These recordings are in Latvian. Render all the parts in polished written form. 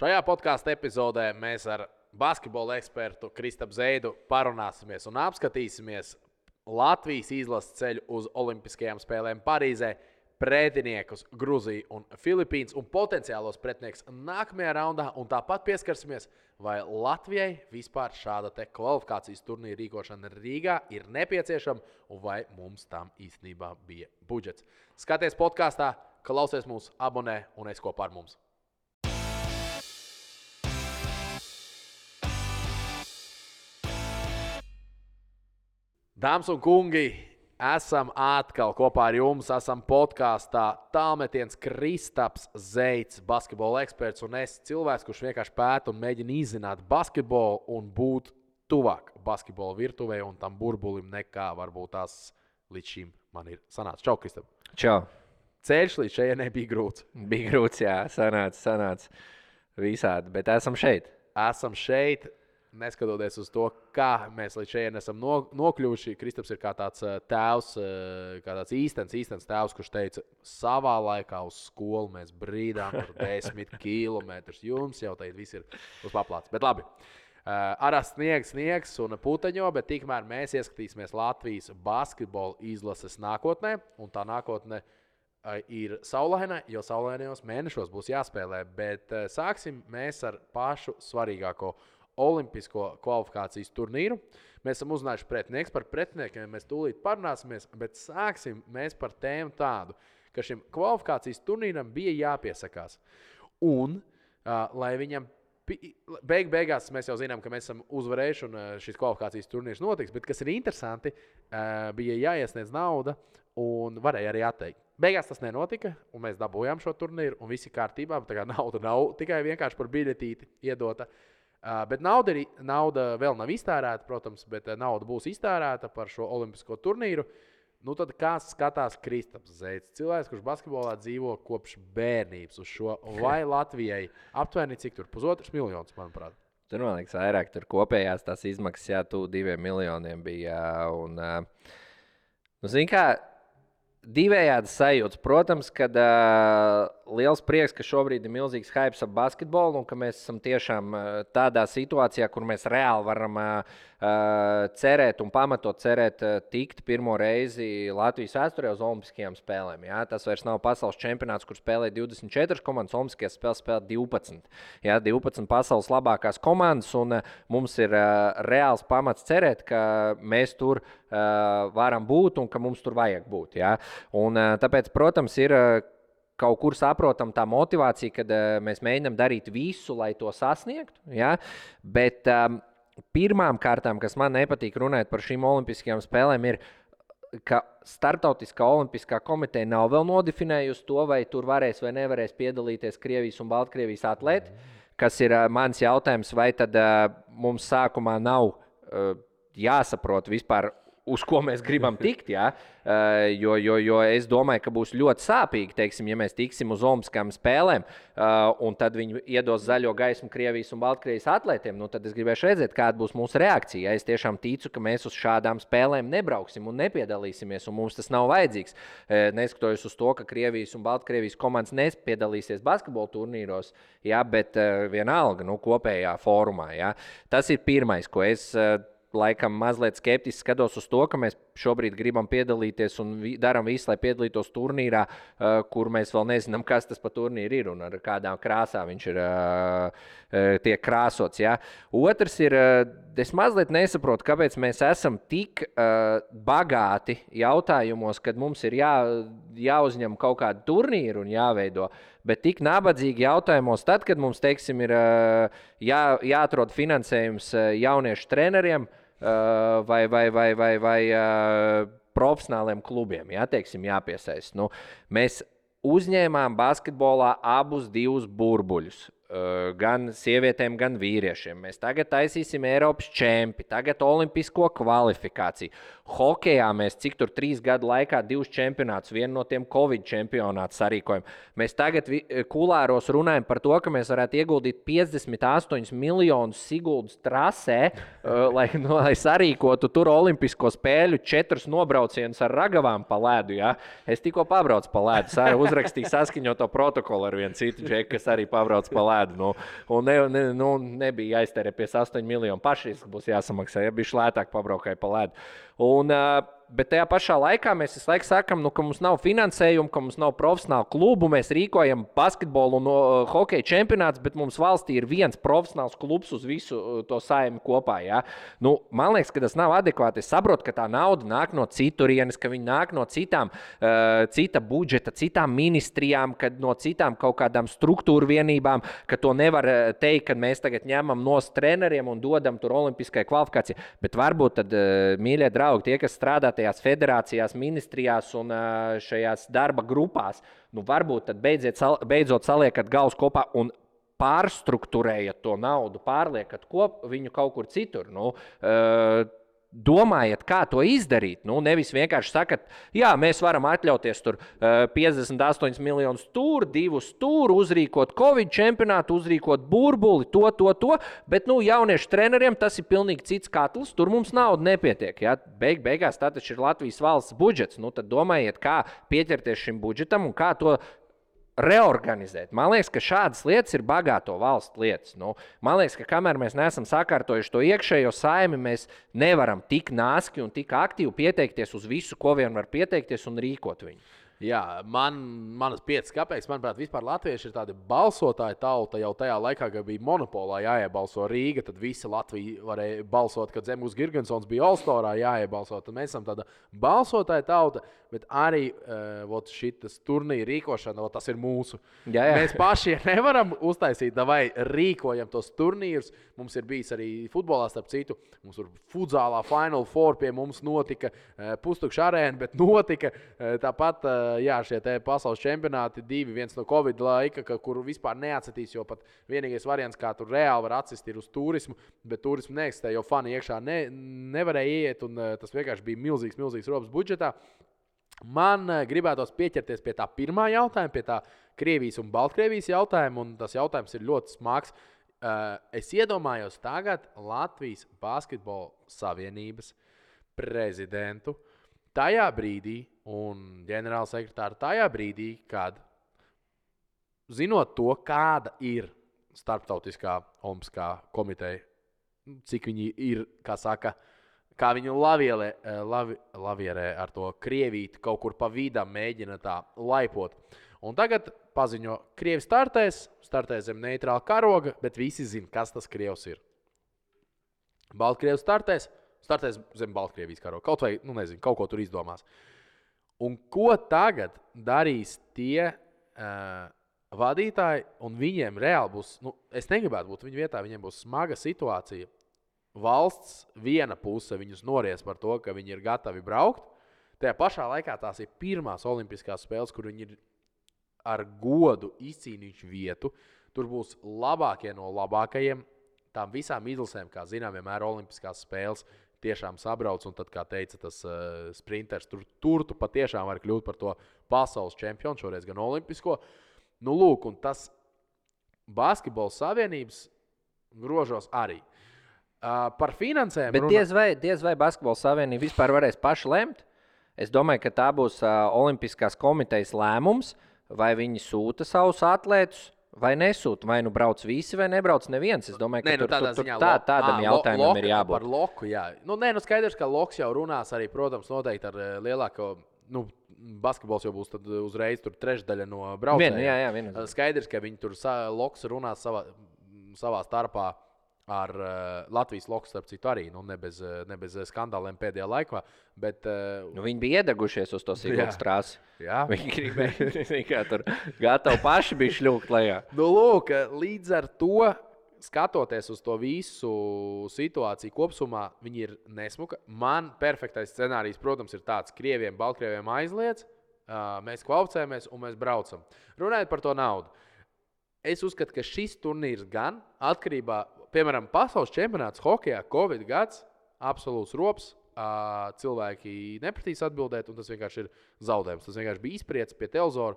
Šajā podkāstu epizodē mēs ar basketbola ekspertu Kristapu Zeidu parunāsimies un apskatīsimies Latvijas izlases ceļu uz Olimpiskajām spēlēm Parīzē, pretiniekus Gruziju un Filipīnas un potenciālos pretinieks nākamajā raundā. Un tāpat pieskarsimies, vai Latvijai vispār šāda kvalifikācijas turnīra rīkošana Rīgā ir nepieciešama un vai mums tam īstenībā bija budžets. Skaties podkāstā, klausies mūs, abonē un esi kopā ar mums. Dāmas un kungi, esam atkal kopā ar jums. Esam podkāstā tālmetiens Kristaps Zeids, basketbola eksperts, un es cilvēks, kurš vienkārši pēta un mēģina izzināt basketbolu un būt tuvāk basketbola virtuvē un tam burbulim nekā varbūt tās līdz šim man ir sanācis. Čau, Kristap! Čau! Ceļš līdz šejienei bija grūts. Bija grūts, jā, sanāca visādi, bet esam šeit. Esam šeit. Neskatoties uz to, kā mēs līdz šeit esam nokļuvuši, Kristaps ir kā tāds tēvs, kā tāds īstenis tēvs, kurš teica, savā laikā uz skolu mēs brīdām tur 10 kilometrus. Jums jau tagad viss ir uz paplātes. Bet labi, arā sniegs un puteņo, bet tikmēr mēs ieskatīsimies Latvijas basketbola izlases nākotnē, un tā nākotne ir saulaina, jo saulainajos mēnešos būs jāspēlē. Bet sāksim mēs ar pašu svarīgāko Olimpisko kvalifikācijas turnīru. Mēs esam uzzinājuši pretinieks, par pretiniekiem mēs tūlīt parunāsimies, bet sāksim mēs par tēmu tādu, ka šim kvalifikācijas turnīram bija jāpiesakās. Un, lai viņam beigās mēs jau zinām, ka mēs esam uzvarējuši un šis kvalifikācijas turnīrs notiks, bet kas ir interesanti, bija jāiesniedz nauda un varēja arī atteikt. Beigās tas nenotika, un mēs dabūjām šo turnīru, un viss ir kārtībā. Tā kā nauda nav tikai vienkārši par biļetīti iedota. Bet nauda vēl nav iztērēta, protams, bet nauda būs iztērēta par šo olimpisko turnīru. Nu tad kā skatās Kristaps Zeids, cilvēks, kurš basketbolā dzīvo kopš bērnības uz šo, vai Latvijai aptuveni cik tur 1,5 miljonus, manuprāt? Tur, man liekas, vairāk tur kopējās tās izmaksas, jā, 2 miljoniem bija. Un, zini kā, divējādi sajūtas. Protams, kad liels prieks, ka šobrīd ir milzīgs hypes ap basketbolu un ka mēs esam tiešām tādā situācijā, kur mēs reāli varam cerēt un pamatot cerēt tikt pirmo reizi Latvijas vēsturē uz Olimpiskajām spēlēm. Jā? Tas vairs nav pasaules čempionāts, kur spēlē 24 komandas, Olimpiskajās spēlēs spēlē 12. Jā, 12 pasaules labākās komandas, un mums ir reāls pamats cerēt, ka mēs tur varam būt un ka mums tur vajag būt. Jā? Un tāpēc, protams, ir kaut kur saprotam tā motivācija, kad mēs mēģinām darīt visu, lai to sasniegtu. Ja? Bet pirmām kārtām, kas man nepatīk runāt par šīm olimpiskajām spēlēm, ir, ka Startautiskā olimpiskā komiteja nav vēl nodefinējusi to, vai tur varēs vai nevarēs piedalīties Krievijas un Baltkrievijas atlēti, kas ir mans jautājums, vai tad mums sākumā nav jāsaprot vispār, uz ko mēs gribam tikt, ja? Jo es domāju, ka būs ļoti sāpīgi, teiksim, ja mēs tiksim uz Olimpiskajām spēlēm, un tad viņi iedos zaļo gaismu Krievijas un Baltkrievijas atlētiem, nu tad es gribēšu redzēt, kāda būs mūsu reakcija. Es tiešām ticu, ka mēs uz šādām spēlēm nebrauksim un nepiedalīsimies, un mums tas nav vajadzīgs. Neskatoties uz to, ka Krievijas un Baltkrievijas komandas nepiedalīsies basketbola turnīros, ja, bet vienalga, kopējā fórumā. Ja. Tas ir pirmais, ko es laikam mazliet skeptiski skatos uz to, ka mēs šobrīd gribam piedalīties un darām visu, lai piedalītos turnīrā, kur mēs vēl nezinām, kas tas pa turnīru ir un ar kādām krāsām viņš ir tiek krāsots. Ja? Otrs ir, es mazliet nesaprotu, kāpēc mēs esam tik bagāti jautājumos, kad mums ir jāuzņem kaut kādu turnīru un jāveido, bet tik nabadzīgi jautājumos tad, kad mums, teiksim, ir jāatrod finansējums jauniešu treneriem, vai profesionāliem klubiem, teiksim, jāpiesaist. Nu, mēs uzņēmām basketbolā abus divus burbuļus. Gan sievietēm, gan vīriešiem. Mēs tagad taisīsim Eiropas čempi, tagad olimpisko kvalifikāciju. Hokejā mēs cik tur 3 gadu laikā 2 čempionātus, vienu no tiem Covid čempionātus sarīkojam. Mēs tagad kulāros runājam par to, ka mēs varētu ieguldīt 58 miljonus Siguldas trasē, lai sarīkotu tur olimpisko spēļu 4 nobraucienus ar ragavām pa ledu. Ja? Es tikko pabraucu pa ledu, uzrakstīju saskaņoto protokolu ar vienu citu džeku, kas arī pabrauc pa ledu. ledu. Un nebija jāiztērē 8 miljonu pašreiz, ka būs jāsamaksā, ja bija lētāk pabraukai pa ledu. Bet tajā pašā laikā mēs visu laiku sakām, ka mums nav finansējuma, ka mums nav profesionāla klubu. Mēs rīkojam basketbolu un hokeja čempionātus, bet mums valstī ir viens profesionāls klubs uz visu to saimi kopā. Ja? Man liekas, ka tas nav adekvāti. Es saprotu, ka tā nauda nāk no citurienes, ka viņi nāk no cita budžeta, citām ministrijām, no citām kaut kādām struktūru vienībām, ka to nevar teikt, ka mēs tagad ņemam no treneriem un dodam tur olimpiskai kvalifikācijai. Bet varbūt tad, mīļie draugi, tie, kas strādā tajās federācijās, ministrijās un šajās darba grupās, varbūt tad beidzot saliekat galus kopā un pārstruktūrējat to naudu, pārliekat viņu kaut kur citur. Domājiet, kā to izdarīt. Nevis vienkārši sakat, jā, mēs varam atļauties tur 58 miljonus tur, 2 tur, uzrīkot Covid čempionātu, uzrīkot burbuli, to. Bet jauniešu treneriem tas ir pilnīgi cits katls. Tur mums nauda nepietiek. Ja? Beigās tā taču ir Latvijas valsts budžets. Tad domājiet, kā pieķerties šim budžetam un kā to reorganizēt. Man liekas, ka šādas lietas ir bagāto valstu lietas. Man liekas, ka kamēr mēs neesam sakārtojuši to iekšējo saimi, mēs nevaram tik nāski un tik aktīvi pieteikties uz visu, ko vien var pieteikties un rīkot viņu. Jā, manas 5 kapeikas, manuprāt, vispār latvieši ir tādi balsotāji tauta jau tajā laikā, kad bija monopolā jāiebalso Rīga, tad visi Latvija varēja balsot, kad Zemgus Girgensons bija All-Starā jāiebalso. Tad mēs esam tāda balsotāja tauta, bet arī šitas turnīra rīkošana, tas ir mūsu. Jā. Mēs paši nevaram uztaisīt, vai rīkojam tos turnīrus. Mums ir bijis arī futbolā, starp citu, mums tur futzālā Final Four pie mums notika, pustukša arēna, bet notika tāpat. Jā, šie pasaules čempionāti, 2, viens no Covid laika, kuru vispār neatsitīs, jo pat vienīgais variants, kā tur reāli var atsist, ir uz turismu, bet turismu neeksistē, jo fani iekšā nevarēja iet, un tas vienkārši bija milzīgs robs budžetā. Man gribētos pieķerties pie tā pirmā jautājuma, pie tā Krievijas un Baltkrievijas jautājuma, un tas jautājums ir ļoti smags. Es iedomājos tagad Latvijas Basketbola Savienības prezidentu tajā brīdī un ģenerālsekretāru tajā brīdī, kad, zinot to, kāda ir Starptautiskā olimpiskā komiteja, cik viņi ir, kā viņu lavierē ar to Krievīti kaut kur pa vidam mēģina tā laipot. Un tagad paziņo, Krievi startēs zem neitrāla karoga, bet visi zina, kas tas Krievs ir. Baltkrievis startēs zem Baltkrievijas karoga. Kaut vai, kaut ko tur izdomās. Un ko tagad darīs tie vadītāji, un viņiem reāli būs, es negribētu būt viņu vietā, viņiem būs smaga situācija. Valsts viena puse viņus nories par to, ka viņi ir gatavi braukt. Tajā pašā laikā tās ir pirmās olimpiskās spēles, kur viņi ir ar godu izcīnījuši vietu. Tur būs labākie no labākajiem. Tām visām izlasēm, kā zinām, vienmēr olimpiskās spēles tiešām sabrauc, un tad, kā teica tas sprinters, tur tu patiešām var kļūt par to pasaules čempionu, šoreiz gan olimpisko. Lūk, un tas Basketbola Savienības grožos arī. Par finansēm... Bet diez vai Basketbola Savienība vispār varēs paši lemt? Es domāju, ka tā būs Olimpiskās komitejas lēmums, vai viņi sūta savus atlētus, vai nesūta, vai brauc visi, vai nebrauc neviens. Es domāju, ka tādam jautājumam ir jābūt. Par loku, jā. Skaidrs, ka loks jau runās arī, protams, noteikti ar lielāko, basketbols jau būs tad uzreiz tur trešdaļa no braucējiem. Skaidrs, ka viņi tur loks runās savā starpā ar Latvijas loks, starp citu arī, ne bez skandāliem pēdējā laikā. Bet, viņi bija iedegušies uz to Siguldas trasi. Jā. Viņi gribēja, tur gatavi paši bija šļūkt lejā. Lūk, līdz ar to, skatoties uz to visu situāciju kopsumā, viņi ir nesmuka. Man perfektais scenārijs, protams, ir tāds, Krieviem, Baltkrieviem aizliedz, mēs kvalificējamies un mēs braucam. Runājot par to naudu. Es uzskatu, ka šis turnīrs gan atkarībā, piemēram, pasaules čempionāts hokejā, Covid gads, absolūts rops, cilvēki nepratīs atbildēt, un tas vienkārši ir zaudējums. Tas vienkārši bija izpriec pie televizora,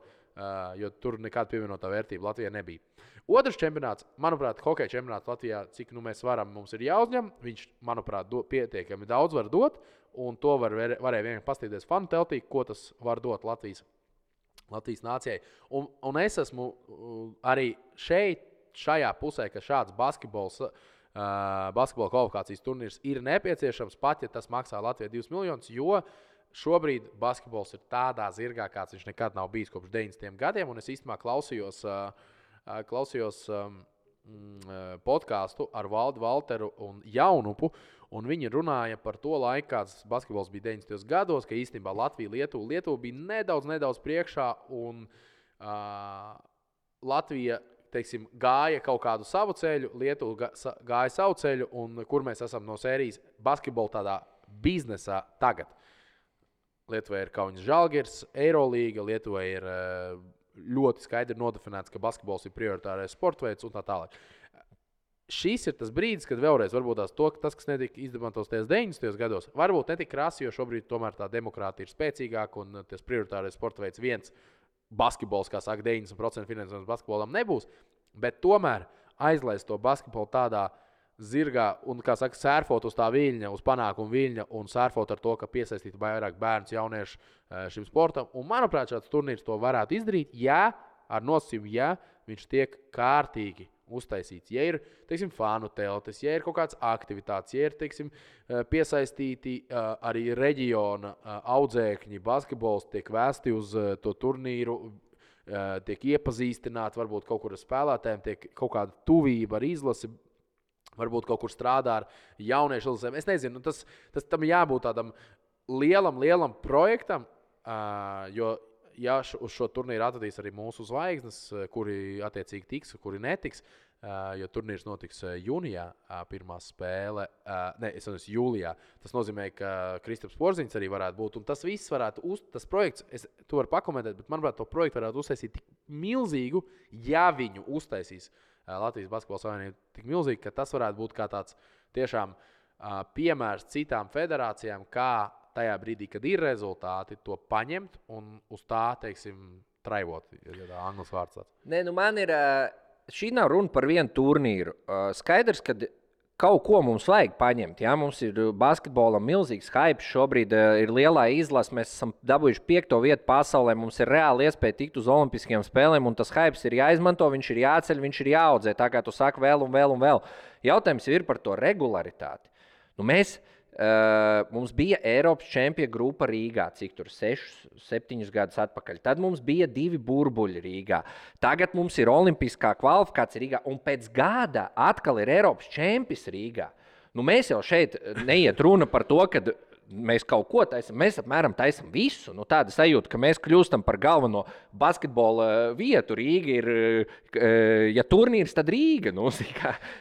jo tur nekāda pievienotā vērtība Latvijā nebija. Otrs čempionāts, manuprāt, hokeja čempionāts Latvijā, cik mēs varam, mums ir jāuzņem. Viņš, manuprāt, pietiekami daudz var dot, un to varēja vienkārši pastīties fanu teltī, ko tas var dot Latvijas nācijai. Un es esmu arī šeit šajā pusē, ka šāds basketbola kvalifikācijas turnīrs ir nepieciešams, pat ja tas maksā Latvijai 2 miljonus, jo šobrīd basketbols ir tādā zirgā, kāds viņš nekad nav bijis kopš 90. gadiem. Un es īstenībā klausījos podkāstu ar Valdu Valteru un Jaunupu, un viņi runāja par to laiku, kāds basketbols bija 90. gados, ka īstenībā Lietuva bija nedaudz priekšā, un Latvija, teiksim, gāja kaut kādu savu ceļu, Lietuva gāja savu ceļu, un kur mēs esam no sērijas basketbola tādā biznesā tagad. Lietuvai ir Kaunas Žalgiris, Eirolīga, Lietuvai ir ļoti skaidri nodefinēts, ka basketbols ir prioritārais sporta veids un tā tālāk. Šis ir tas brīdis, kad vēlreiz varbūt tas, kas netika izdemantos 90. gados, varbūt netika krasi, jo šobrīd tomēr tā demokrātija ir spēcīgāka un tas prioritārais sporta veids viens basketbols, kā saka, 90% finansējums basketbolam nebūs, bet tomēr aizlaist to basketbolu tādā zirgā un, kā saka, sērfot uz tā viļņa, uz panākumu viļņa un sērfot ar to, ka piesaistītu vairāk bērnus, jauniešu šim sportam. Un, manuprāt, šāds turnīrs to varētu izdarīt, ja ar nosacījumu, ja viņš tiek kārtīgi uztaisīts. Ja ir, teiksim, fanu teltis, ja ir kaut kāds aktivitātes, ja ir, teiksim, piesaistīti arī reģiona audzēkņi, basketbols tiek vēsti uz to turnīru, tiek iepazīstināti, varbūt kaut kur ar spēlētājiem, tiek kaut kāda tuvība ar izlasi, varbūt kaut kur strādā ar jauniešu izlasēm. Es nezinu, tas tam jābūt tādam lielam projektam, jo ja uz šo turnīru atradīs arī mūsu zvaigznes, kuri attiecīgi tiks, kuri netiks, jo turnīrs notiks jūnijā, pirmā spēle, jūlijā. Tas nozīmē, ka Kristaps Porziņš arī varētu būt, un tas viss varētu, tas projekts, es to varu pakomentēt, bet manuprāt, to projektu varētu uztaisīt tik milzīgu, ja viņu uztaisīs Latvijas Basketbola Savienība tik milzīgi, ka tas varētu būt kā tāds tiešām piemērs citām federācijām, kā tajā brīdī, kad ir rezultāti, to paņemt un uz tā, teiksim, traivot, ja tā anglis vārds tāds. Nē, man ir, šī nav runa par vienu turnīru. Skaidrs, ka kaut ko mums vajag paņemt. Ja? Mums ir basketbolam milzīgs hype, šobrīd ir lielā izlase, mēs esam dabūjuši 5. vietu pasaulē, mums ir reāli iespēja tikt uz olimpiskajām spēlēm, un tas hype ir jāizmanto, viņš ir jāceļ, viņš ir jāaudzē, tā kā tu saki vēl un vēl. Jautājums ir par to regularitāti. Mums bija Eiropas čempionu grupa Rīgā, cik tur 6-7 gadus atpakaļ. Tad mums bija 2 burbuļi Rīgā. Tagad mums ir olimpiskā kvalifikācija Rīgā, un pēc gada atkal ir Eiropas čempions Rīgā. Mēs jau šeit neiet runa par to, ka mēs kaut ko taisam, mēs apmēram taisam visu. Tāda sajūta, ka mēs kļūstam par galveno basketbola vietu. Rīga ir, ja turnīrs, tad Rīga.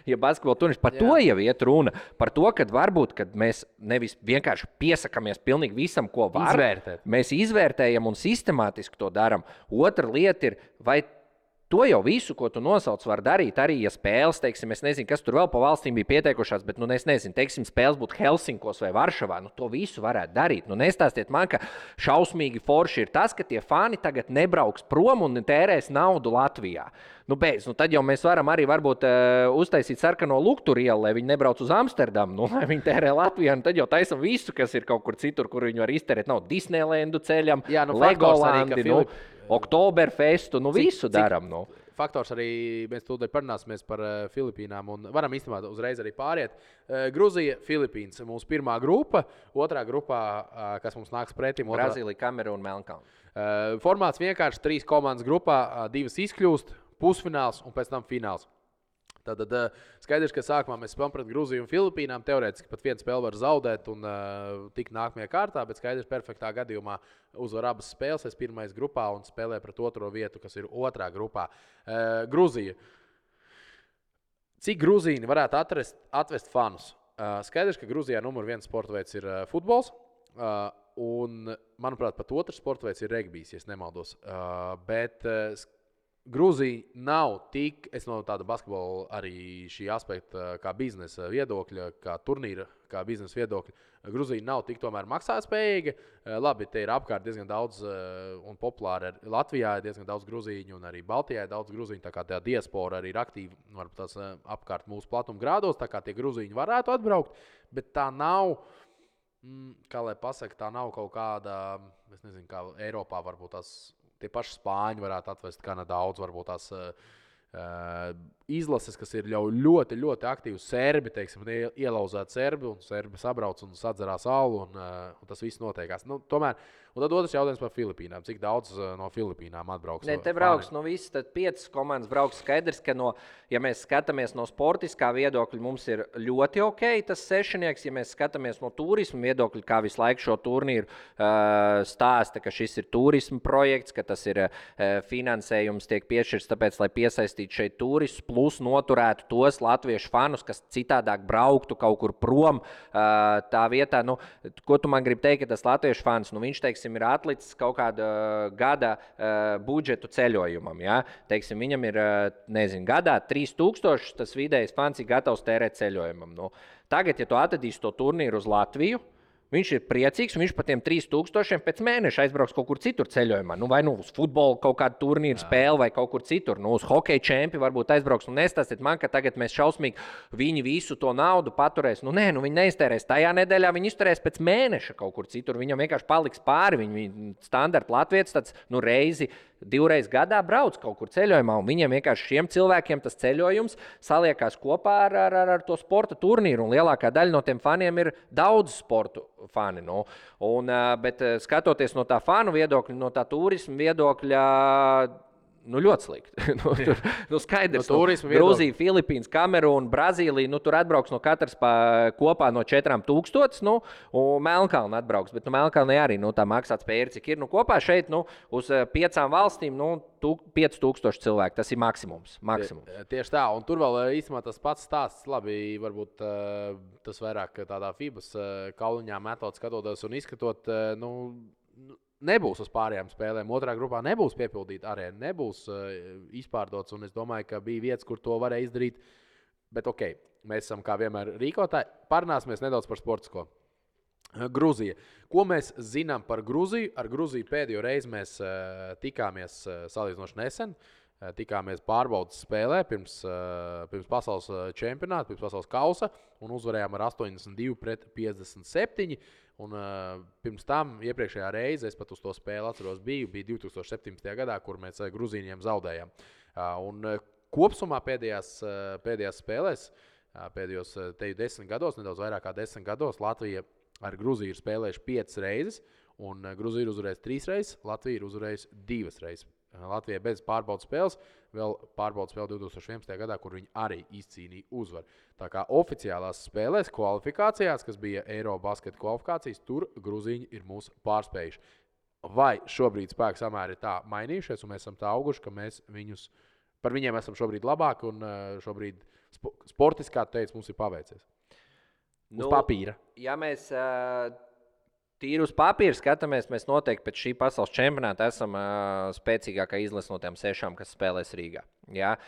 Ja basketbola turnīrs, par to jau iet runa. Par to, ka varbūt, kad mēs nevis vienkārši piesakamies pilnīgi visam, ko var. Izvērtēt. Mēs izvērtējam un sistemātiski to darām. Otra lieta ir, vai to jau visu, ko tu nosauc, var darīt arī, ja spēles, teiksim, es nezinu, kas tur vēl pa valstīm bija pieteikušās, bet, es nezinu, teiksim, spēles būtu Helsinkos vai Varšavā, to visu varētu darīt. Nestāstiet man, ka šausmīgi forši ir tas, ka tie fani tagad nebrauks prom un tērēs naudu Latvijā. Tad jau mēs varam arī varbūt uztaisīt sarkano Luktur ielu, lai viņi nebrauc uz Amsterdamu, lai viņi tērē Latvijā, tad jau taisam visu, kas ir kaut kur citur, kur viņi var iztērēt. Nav Disneylandu ceļam, Legolandi, Oktoberfestu, visu daram. Faktors arī, mēs tūdaļ parunāsimies par Filipīnām un varam īstenībā uzreiz arī pāriet. Gruzija, Filipīnas, mūsu pirmā grupa, otrā grupā, kas mums nāks pretim. Brazīlija, Kamerūna, Melnkalne. Formāts vienkārši 3 komandas grupā, 2 izkļūst, pusfināls un pēc tam fināls. Tad skaidrs, ka sākumā mēs spēlējam pret Gruziju un Filipīnām. Teorētiski pat vienu spēli var zaudēt un tikt nākamajā kārtā, bet skaidrs, perfektā gadījumā uzvar abas spēles. Es pirmais grupā un spēlēju pret otro vietu, kas ir otrā grupā. Gruzija. Cik grūzīni varētu atvest fanus? Skaidrs, ka Gruzijā numur 1 sporta veids ir futbols. Un, manuprāt, pat otrs sporta veids ir regbijs, ja nemaldos. Bet Grūzija nav tik, es no tāda basketbola arī šī aspekta, kā biznesa viedokļa, kā turnīra, kā biznesa viedokļa, Grūzija nav tik tomēr maksātspējīga. Labi, te ir apkārt diezgan daudz un populāri. Latvijā ir diezgan daudz grūzīņu un arī Baltijā ir daudz grūzīņu, tā kā tā diaspora arī ir aktīva, varbūt tās apkārt mūsu platuma grādos, tā kā tie grūzīņi varētu atbraukt, bet tā nav, kā lai pasaka, tā nav kaut kāda, es nezinu, kā Eiropā varbūt tās. Tie paši spāņi varētu atvest gana daudz, varbūt tās izlases, kas ir ļoti, ļoti aktīvi serbi, teiksim, ielauzēti serbi, un serbi sabrauc un sadzerās alu, un tas viss notiekās. Nu, tomēr, un tad otrs jautājums par Filipīnām. Cik daudz no Filipīnām atbrauks? Ne, te brauks no visas, tad 5 komandas brauks. Skaidrs, ka ja mēs skatāmies no sportiskā viedokļa, mums ir ļoti ok tas sešnieks. Ja mēs skatāmies no turisma viedokļa, kā visu laiku šo turnīru stāsta, ka šis ir turisma projekts, ka tas ir finansējums tiek piešķirts tāpēc, lai piesaistītu šeit turistus, plus noturētu tos latviešu fanus, kas citādāk brauktu kaut kur prom tā vietā. Nu, ko tu man gribi teikt, ka tas latviešu fans, viņš teiksim, ir atlicis kaut kāda gada budžetu ceļojumam. Ja? Teiksim, viņam ir, gadā 3000, tas vidējais fans ir gatavs tērēt ceļojumam. Nu, tagad, ja tu atradīsi to turnīru uz Latviju, viņš ir priecīgs, un viņš par tiem 3000 pēc mēneša aizbrauks kaut kur citur ceļojumā. Vai uz futbolu kaut kādu turnīru spēli vai kaut kur citur. Uz hokeja čempi varbūt aizbrauks. Nestāstiet man, ka tagad mēs šausmīgi viņi visu to naudu paturēs. Nē, viņi neiztērēs tajā nedēļā, viņi izturēs pēc mēneša kaut kur citur. Viņam vienkārši paliks pāri. Viņi standarta latvietis tāds reizi, 2 reizes gadā brauc kaut kur ceļojumā, un viņiem vienkārši šiem cilvēkiem tas ceļojums saliekās kopā ar to sporta turnīru, un lielākā daļa no tiem faniem ir daudz sportu fani. Nu. Bet skatoties no tā fanu viedokļa, no tā turisma viedokļa, ļoti slikti. Skaidrs, Grūzija, Filipīnas, Kamerūna, Brazīlija, tur atbrauks no katras kopā no 4000, un Melnkalna atbrauks. Bet Melnkalnē arī tā maksātspēja ir, cik ir. Kopā šeit uz 5 valstīm 5000 cilvēku. Tas ir maksimums. Tieši tā, un tur vēl īstenībā tas pats stāsts. Labi, varbūt tas vairāk tādā FIBAS kauliņā metot, skatoties un izskatot, nebūs uz pārējām spēlēm. Otrā grupā nebūs piepildīta arēna, nebūs izpārdots. Un es domāju, ka bija vietas, kur to varēja izdarīt. Bet ok, mēs esam kā vienmēr rīkotāji. Parunāsimies nedaudz par sportisko. Grūzija. Ko mēs zinām par Grūziju? Ar Grūziju pēdējo reizi mēs tikāmies salīdzinoši nesen. Tikāmies pārbaudas spēlē pirms pasaules čempionāta, pirms pasaules kausa, un uzvarējām ar 82-57. Un pirms tam, iepriekšējā reize, es pat uz to spēli atceros, bija 2017. gadā, kur mēs Grūzīņiem zaudējām. Un kopsumā pēdējās spēlēs, pēdējos 10 gados, nedaudz vairāk kā 10 gados, Latvija ar Grūziju ir spēlējuši 5 reizes, un Grūzija ir uzvarējusi 3 reizes, Latvija ir uzvarējusi 2 reizes. Latvijai bez pārbaudas spēles, vēl pārbaudas spēle 2011. gadā, kur viņi arī izcīnīja uzvaru. Tā kā oficiālās spēlēs, kvalifikācijās, kas bija Eirobasketa kvalifikācijas, tur Grūzīņi ir mūs pārspējuši. Vai šobrīd spēku samēri ir tā mainījušies, un mēs esam tā auguši, ka mēs par viņiem esam šobrīd labāki, un šobrīd sportiskā teica, mums ir paveicies. Uz papīra. Ja mēs tīri uz papīra skatāmies, mēs noteikti pēc šī pasaules čempionāta esam spēcīgākā izlase no tiem 6, kas spēlēs Rīgā. Ja?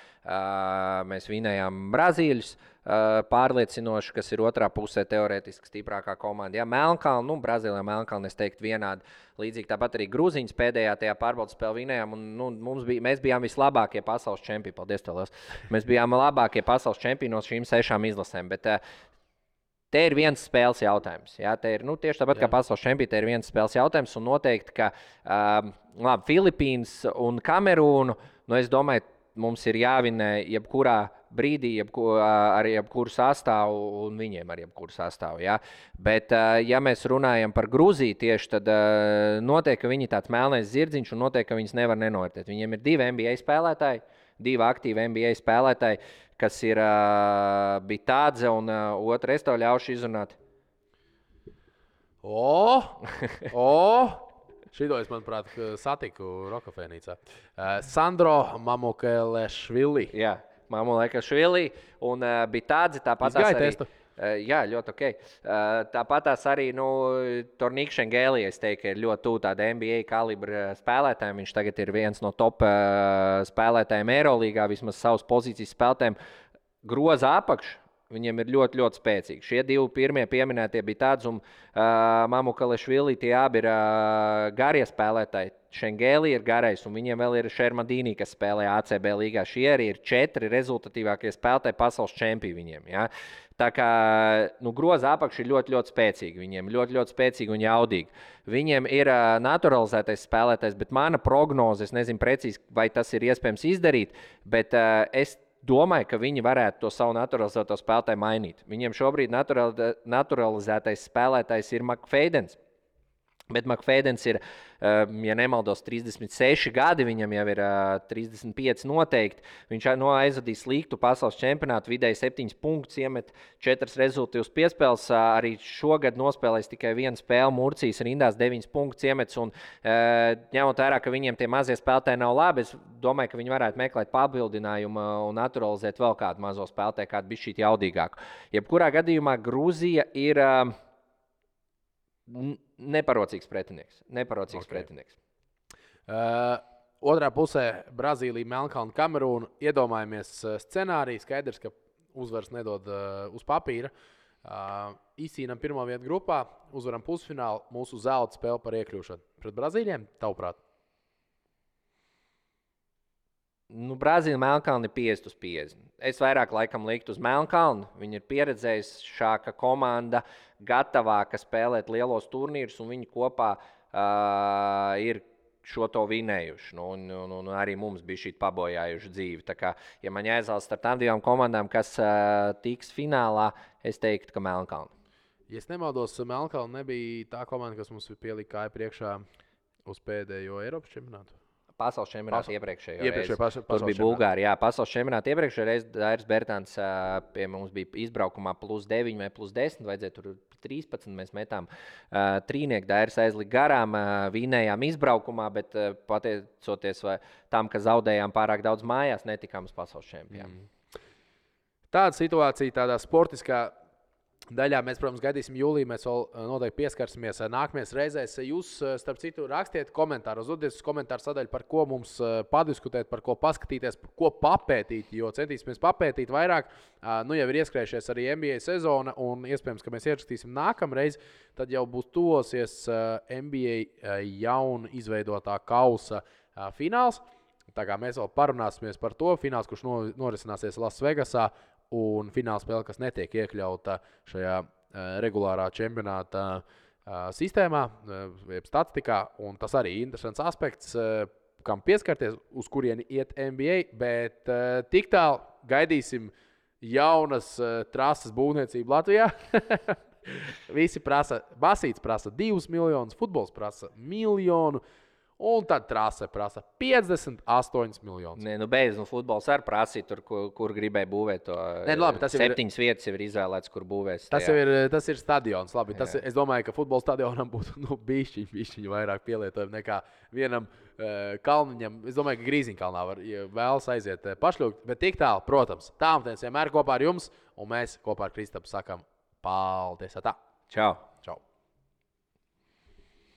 Mēs vinējām Brazīļus pārliecinoši, kas ir otrā pusē teorētiski stiprākā komanda. Ja? Melnkalna, Brazīlijā Melnkalna, es teiktu vienādi. Līdzīgi tāpat arī Grūziņas pēdējā tajā pārbaudas spēlē vinējām, un mēs bijām vislabākie pasaules čempioni. Paldies, tev liels. Mēs bijām labākie pasaules čempioni no šīm 6 izlasēm, bet te ir viens spēles jautājums. Ja? Te ir, tieši tāpat kā pasaules čempioni, te ir viens spēles jautājums. Un noteikti, ka Filipīnas un Kamerūnu, es domāju, mums ir jāvinē jebkurā brīdī ar jebkuru sastāvu, un viņiem ar jebkuru sastāvu. Ja? Bet, ja mēs runājam par Grūziju tieši, tad noteikti, ka viņi tāds melnais zirdziņš, un noteikti, ka viņas nevar nenovērtēt. Viņiem ir 2 NBA spēlētāji, 2 aktīvi NBA spēlētāji, kas ir Bitādze un otra, es tev ļaušu izrunāt. Šito es, manuprāt, satiku Rokafēnīcā. Sandro Mamukelešvili. Jā, Mamukelešvili un Bitādze tāpat arī. Jā, ļoti ok. Tāpatās arī Tornīks Šengēlija, es teiktu, ir ļoti tuvu tāda NBA kalibra spēlētājiem. Viņš tagad ir viens no top spēlētājiem Eirolīgā, vismaz savas pozīcijas spēlētājiem. Groza apakš, viņiem ir ļoti, ļoti spēcīgi. Šie 2 pirmie pieminētie Bitādze un Mamukelešvili, tie abi ir garie spēlētāji. Šengēlija ir garais, un viņiem vēl ir Šermadīnī, kas spēlē ACB līgā. Šie arī ir 4 rezultatīvākie spēlētāji pasaules čempioni viņiem. Ja? Tā kā groza apakš ir ļoti, ļoti spēcīgi. Viņiem ļoti, ļoti spēcīgi un jaudīgi. Viņiem ir naturalizētais spēlētājs, bet mana prognoze, es nezinu precīzi, vai tas ir iespējams izdarīt, bet es domāju, ka viņi varētu to savu naturalizēto spēlētāju mainīt. Viņiem šobrīd naturalizētais spēlētājs ir McFadens. Bet McFadens ir, ja nemaldos, 36 gadi, viņam jau ir 35 noteikti. Viņš aizvadīs sliktu pasaules čempionātu, vidēji 7 punktus, iemet 4 rezultātus piespēles. Arī šogad nospēlēs tikai 1 spēle, Murcijas rindās 9 punktus iemets. Un, ņemot vērā, ka viņiem tie mazie spēlētāji nav labi, es domāju, ka viņi varētu meklēt papildinājumu un naturalizēt vēl kādu mazo spēlētāju, kādu bišķīt jaudīgāku. Jebkurā gadījumā Grūzija ir neparocīgs pretinieks. Otrā pusē Brazīlija, Melnkalne, Kamerūna. Iedomājamies scenāriju. Skaidrs, ka uzvaras nedod uz papīra. Izcīnām pirmo vietu grupā, uzvaram pusfinālu, mūsu zelta spēle par iekļūšanu. Pret Brazīļiem, tavuprāt? Brazīlija, Melnkalne ir 50/50. Es vairāk laikam liktu uz Melnkalnu. Viņi ir pieredzējušāka komanda, gatavāka spēlēt lielos turnīrus, un viņi kopā ir šo to vinējuši. Un arī mums bija šī pabojājuša dzīve. Tā kā, ja man jāizvēlas starp tām divām komandām, kas tiks finālā, es teiktu, ka Melnkalna. Ja es nemaldos, Melnkalna nebija tā komanda, kas mums pielika kāju priekšā uz pēdējo Eiropas čempionātu. Pasaules čempionāta iepriekšējo reizi. Tur bija Bulgārija. Pasaules čempionāta iepriekšējā reize Dairis Bērtāns pie mums bija izbraukumā +9 vai +10. Vajadzēja tur 13. Mēs metām trīnieku. Dairis aizlika garām, vinējām izbraukumā, bet pateicoties tam, ka zaudējām pārāk daudz mājās, netikām uz pasaules čempionātu. Tāda situācija, tādā sportiskā daļā mēs, protams, gaidīsim jūlijā. Mēs vēl noteikti pieskarsimies nākamajās reizēs. Jūs, starp citu, rakstiet komentārus, uzdodiet uz komentāru sadaļu, par ko mums padiskutēt, par ko paskatīties, par ko papētīt. Jo centīsimies papētīt vairāk. Nu jau ir ieskrējušies arī NBA sezona, un iespējams, ka mēs ierakstīsim nākamreiz. Tad jau būs tuvosies NBA jaunu izveidotā kausa fināls. Tā kā mēs vēl parunāsimies par to fināls, kurš norisināsies Lasvegasā. Un fināla spēle, kas netiek iekļauta šajā regulārā čempionāta sistēmā, jeb statistikā. Un tas arī ir interesants aspekts, kam pieskarties, uz kurieni iet NBA. Bet tik tālu gaidīsim jaunas trases būvniecību Latvijā. Visi prasa, basīts prasa 2 miljonus, futbols prasa 1 miljonu. Un tad trase prasa 58 miljonus. Nē, beidz, futbols arī prasīja tur, kur gribēja būvēt to. Nē, labi, tas 7 vietas jau ir izvēlēts, kur būvēs. Tas ir stadions. Labi, es domāju, ka futbola stadionam būtu bišķiņ vairāk pielietojumu nekā vienam kalniņam. Es domāju, ka Grīziņkalnā var vēlas aiziet pašļūgt. Bet tik tālu, protams, tālmetiens vienmēr kopā ar jums. Un mēs kopā ar Kristapu sakam paldies. Tā. Čau! Čau!